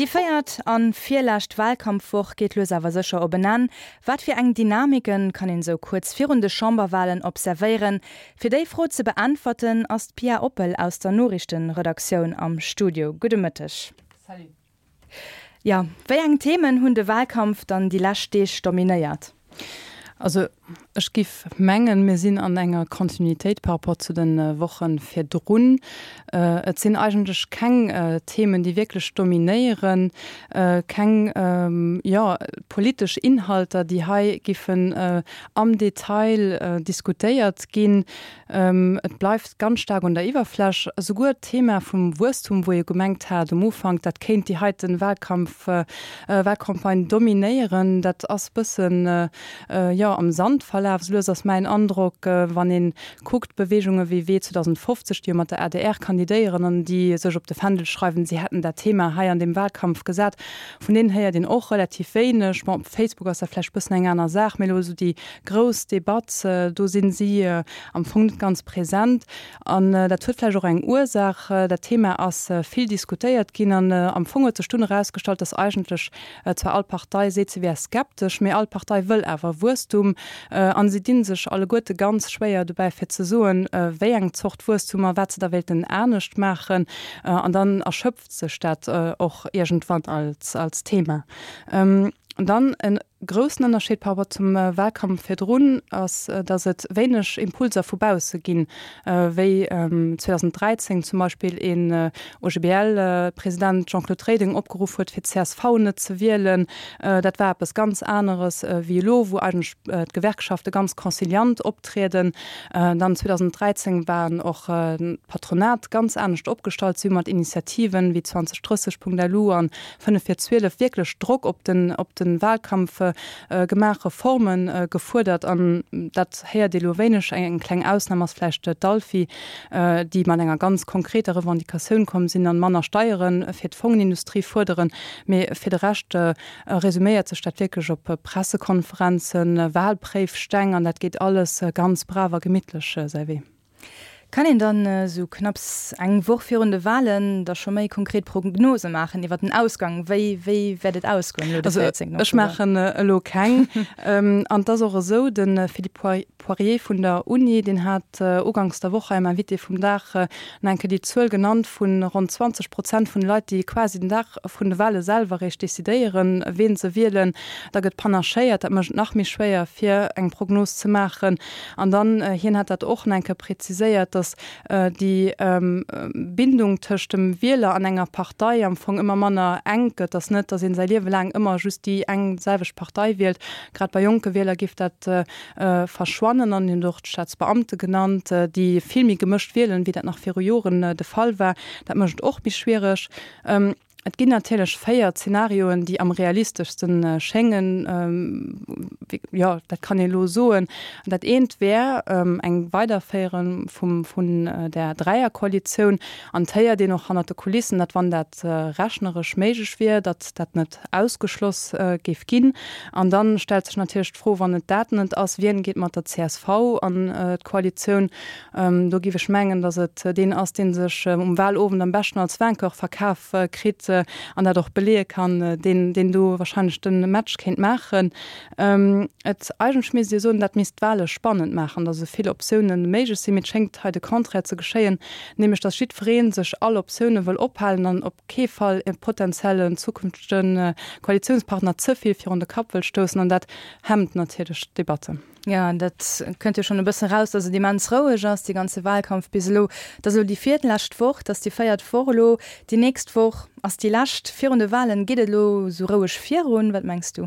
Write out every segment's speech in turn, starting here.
Déi véiert an virlescht Wahlkampfwoch geet lues awer sécher op en Enn. Wat fir eng Dynamiken kann een esou kuerz virun de Chamberwahlen observéieren? Fir déi Fro ze beäntwerten ass d'Pia Oppel aus der Noriichtenredaktioun am Studio. Gudde Mëtteg. Salut. Jo, wéi eng Themen hunn de Wahlkampf dann déi lescht Deeg dominéiert? Also ech giff mengen, mir sinn an enger Kontinuitéit par rapport zu de Woche virdrun. Et sinn eigentlech keng Themen, déi wierklech dominéieren, keng, jo, politesch Inhalter, déi hei giffen am Detail diskutéiert ginn. Et bleift ganz staark un der Iwwerfläch. Esouguer d'Thema vum Wuesstum, wou ee gemengt hat um Ufank, dat kéint déi heiten Wahlkampf, Wahlcampagne dominéieren, dat ass bëssen, jo, am Sand verlaf. Esou lues ass mäin Androck, wann ee kuckt, Beweegunge wéi Wee 2050, déi jo mat der adr kandidéieren an déi sech op de Fändel schreiwen, si hätten dat Thema hei an deem Wahlkampf gesat, vun deenen héiert een och relativ wéineg. Bon, op Facebook ass dat vläicht bëssen eng aner Saach, mee elo esou déi grouss Debatt, do sinn si am Fong net ganz present. An dat huet vläicht och eng Ursaach. Dat Thema ass vill diskutéiert ginn an am Fong huet sech dunn erausgestallt, datt eigentlech zwar all Partei seet, se wär skeptesch, mee all Partei wëll awer Wuesstum. A si di sech alleguerte ganz schwéier dobäi fir ze soen, wéi eng Zort Wuesstum a wat se da wéilten anescht maachen. An dann erschöpft sech dat och iergendwann als Thema. Dann en groussen Ënnerscheed par rapport zum Wahlkampf virdrun ass, datt et wéineg Impulser vu bausse ginn, wéi 2013 zum Beispill een OGBL-President Jean-Claude Reding opgeruff huet, fir csv net ze wielen. Dat war eppes ganz aneres wéi elo, wou eigentlech d'Gewerkschafte ganz conciliant optrieden. Dann 2013 waren och d'Patronat ganz anescht opgestallt. Si hu mat Initiativen wéi 2030.lu an 5 vir 12 wierklech Drock op den, op de Wahlkampf gemaach, Reforme gefuerdert an dat héiert ee lo wéineg. Eng kleng Ausnam ass vläicht d'Alfi, déi mat enger ganz konkreter Revendicatioun komm sinn an manner Steiere fir d'Fongenindustrie fuerderen. Mee fir de Rescht resuméiert sech dat wierklech op Pressekonferenzen, Wahlpréifsteng an dat geet alles ganz brav a gemittlech säi Wee. Kann een dann esou knapps eng Woch virun de Wahlen da scho méi konkret Prognose maachen iwwer den Ausgang? Wéi, wéi wäert et ausgoen elo de 14 Oktober? Ech maachen elo keng. An et ass och esou, de Philippe Poirier vun der Uni, deen hat uganks der Woch hei am Invité vum Dag nach eng Kéier déi Zuel genannt vu ronn 20 Prozent vun de Leit, déi quasi den Dag vun de Wahle selwer eréischt decidéieren, ween se wielen. Da gëtt panachéiert. Dat mécht et nach méi schwéier, fir eng Prognos ze maachen. An dann, hien hat dat och nach eng Kéier präziséiert, datt déi Bindung tëscht dem Wieler an enger Partei am Fong ëmmer manner enk gëtt, datt net, datt ee säi Liewe laang ëmmer just déi eng selwecht Partei wielt. Grad bei jonke Wieler géif dat verschwannen. An hien huet och d'Staatsbeamte genannt, déi vill méi gemëscht wielen, wéi dat nach viru Joren de Fall war. Dat mécht et och méi schwiereg. Et ginn natierlech 4 Zenarioen, déi am realisteschste schéngen. Jo, dat kann ee elo soen. Dat eent wär eng Weiderféiere vum, vun där Dräierkoalitioun. An et héiert een och hannert de Kulissen, datt wann dat rechneresch méiglech wier, datt dat net ausgeschloss géif ginn. An da stellt sech natierlech d'Fro, wann et dat net ass, wien geet mat der csv an d'Koalitioun? Do géif ech mengen, datt et deen ass, dee sech um Wahlowend am beschten als Vainqueur verkaf kritt an dat och beleeë kann, deen, deen do wahrscheinlech de Match kéint maachen. Et, eigentlech misst ee soen, dat misst d'Wahle spannend maachen, datt esou vill Optioune méiglech sinn, mee et schéngt hei de Contraire ze geschéien, nämlech datt jiddweree sech all Optioune wëll ophalen an op kee Fall e potenziellen zukünftege Koalitiounspartner ze vill virun de Kapp wëll stoussen an dat hemmt natierlech d'Debatte. Jo, dat kënnt jo schonn e bëssen eraus, dass et immens roueg ass, dee ganze Wahlkampf bis elo. Et ass elo déi virlescht Woch, et ass déi véiert Woch elo. Déi nächst Woch ass déi lescht virun de Wahlen. Geet et elo esou roueg virun? Wat mengs du?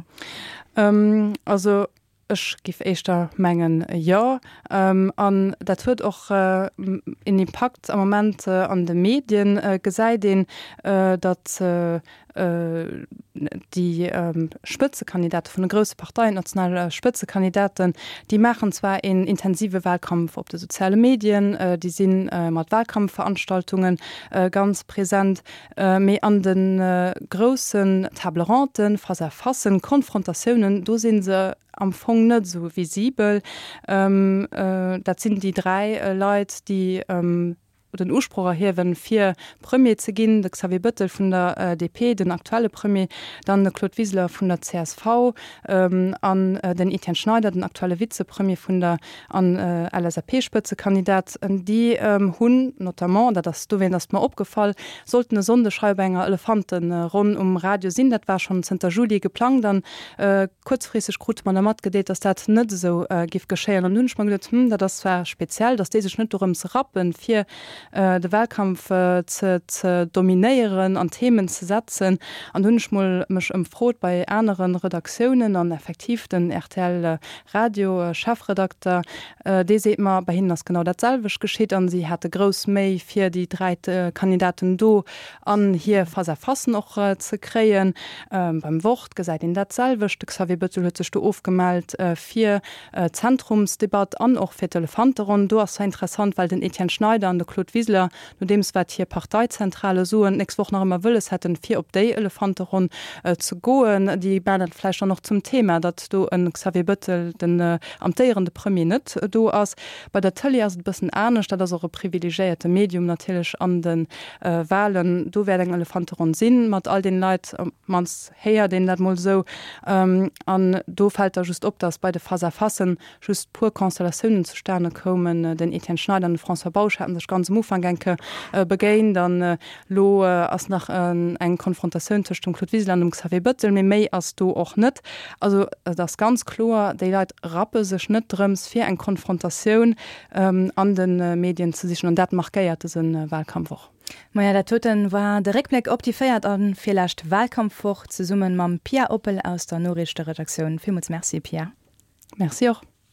Also ech géif éischter mengen, jo. An dat huet och en Impakt am Moment an de Medien, gesäit een, datt Déi Spëtzekandidate vun de grousse Parteien, d'national Spëtzekandidaten, déi maachen zwar een intensive Wahlkampf op de soziale Medien, déi si mat Wahlkampfveranstaltunge ganz present, mee an de groussen Table-ronde, Face-à-facen, Konfrontatiounen, do si se am Fong net esou visibel. Dat sinn déi 3 Leit, déi. den Usproch erhiewen, fir Premier ze ginn, de Xavier Bëttel vun der DP, den aktuelle Premier, dann de Claude Wiseler vun der csv an den Etienne Schneider, den aktuelle Vizepremier vun der an LSAP-Spëtzekandidat. Déi hunn notamment, dat ass dowéint ass et mer opgefall, sollten e Sonndeg hei op enger Elefanteronn um Radio sinn. Dat war schonn zënter Juli geplangt an kuerzfristeg krute mer da matgedeelt, datt dat net esou giff geschéien. An du hunn ech mer geduet, Hm, dat ass zwar speziell, datt déi sech net dorëms rappen, fir de Wahlkampf ze ze dominéieren an Themen ze setzen. An do hunn ech mol mech ëmfrot bei anere Redaktiounen an effektiv den rtl Radio Chefredakter, dee seet mer, bei hinnen ass genau dat selwecht geschitt an si hate grouss Méi fir déi 3 Kandidaten do an hir Face-à-facen och ze kréien. Beim Wort gesäit een dat selwecht, de Xavier Bettel huet sech do ofgemellt fir d'Zentrumsdebatt an och fir d'Elefanteronn. Do ass zwar interessant, well den Etienne Schneider an de Claude Wiseler, nodeems wat hir Parteizentrale soen, d'nächst Woch nach ëmmer wëlles hätten, fir op déi Elefanteronn ze goen. Déi maachen dat vläicht dann och zum Thema, datt do e Xavier Bettel, den amtéierende Premier, net do ass. Bei der Tëlee ass et e bëssen anescht. Dat ass och e privilegiéierte Medium natierlech an de Walen. Do wäert eng Elefanteronn sinn, mat all deene Leit, op d'mannst héiert een dat mol esou. An do fält da just op, datt bei de Face-à-facen just puer Constellatiounen zustane koumen. Den Etienne Schneider an de François Bausch haten sech ganz um Ufank eng Kéier begéint an elo ass nach eng Konfrontatioun tëscht dem Claude Wiseler an dem Xavier Bettel, mee méi ass do och net. Also et ass ganz kloer, déi Leit rappe sech net drëms fir eng Konfrontatioun an de Medien ze sichen an dat markéiert dëse Wahlkampf och. Maja, dat doten war de Réckbléck op déi véiert a virlescht Wahlkampfwoch, zesumme mam Pia Oppel aus der Noriichteredaktioun. Villmools Merci, Pia. Merci och.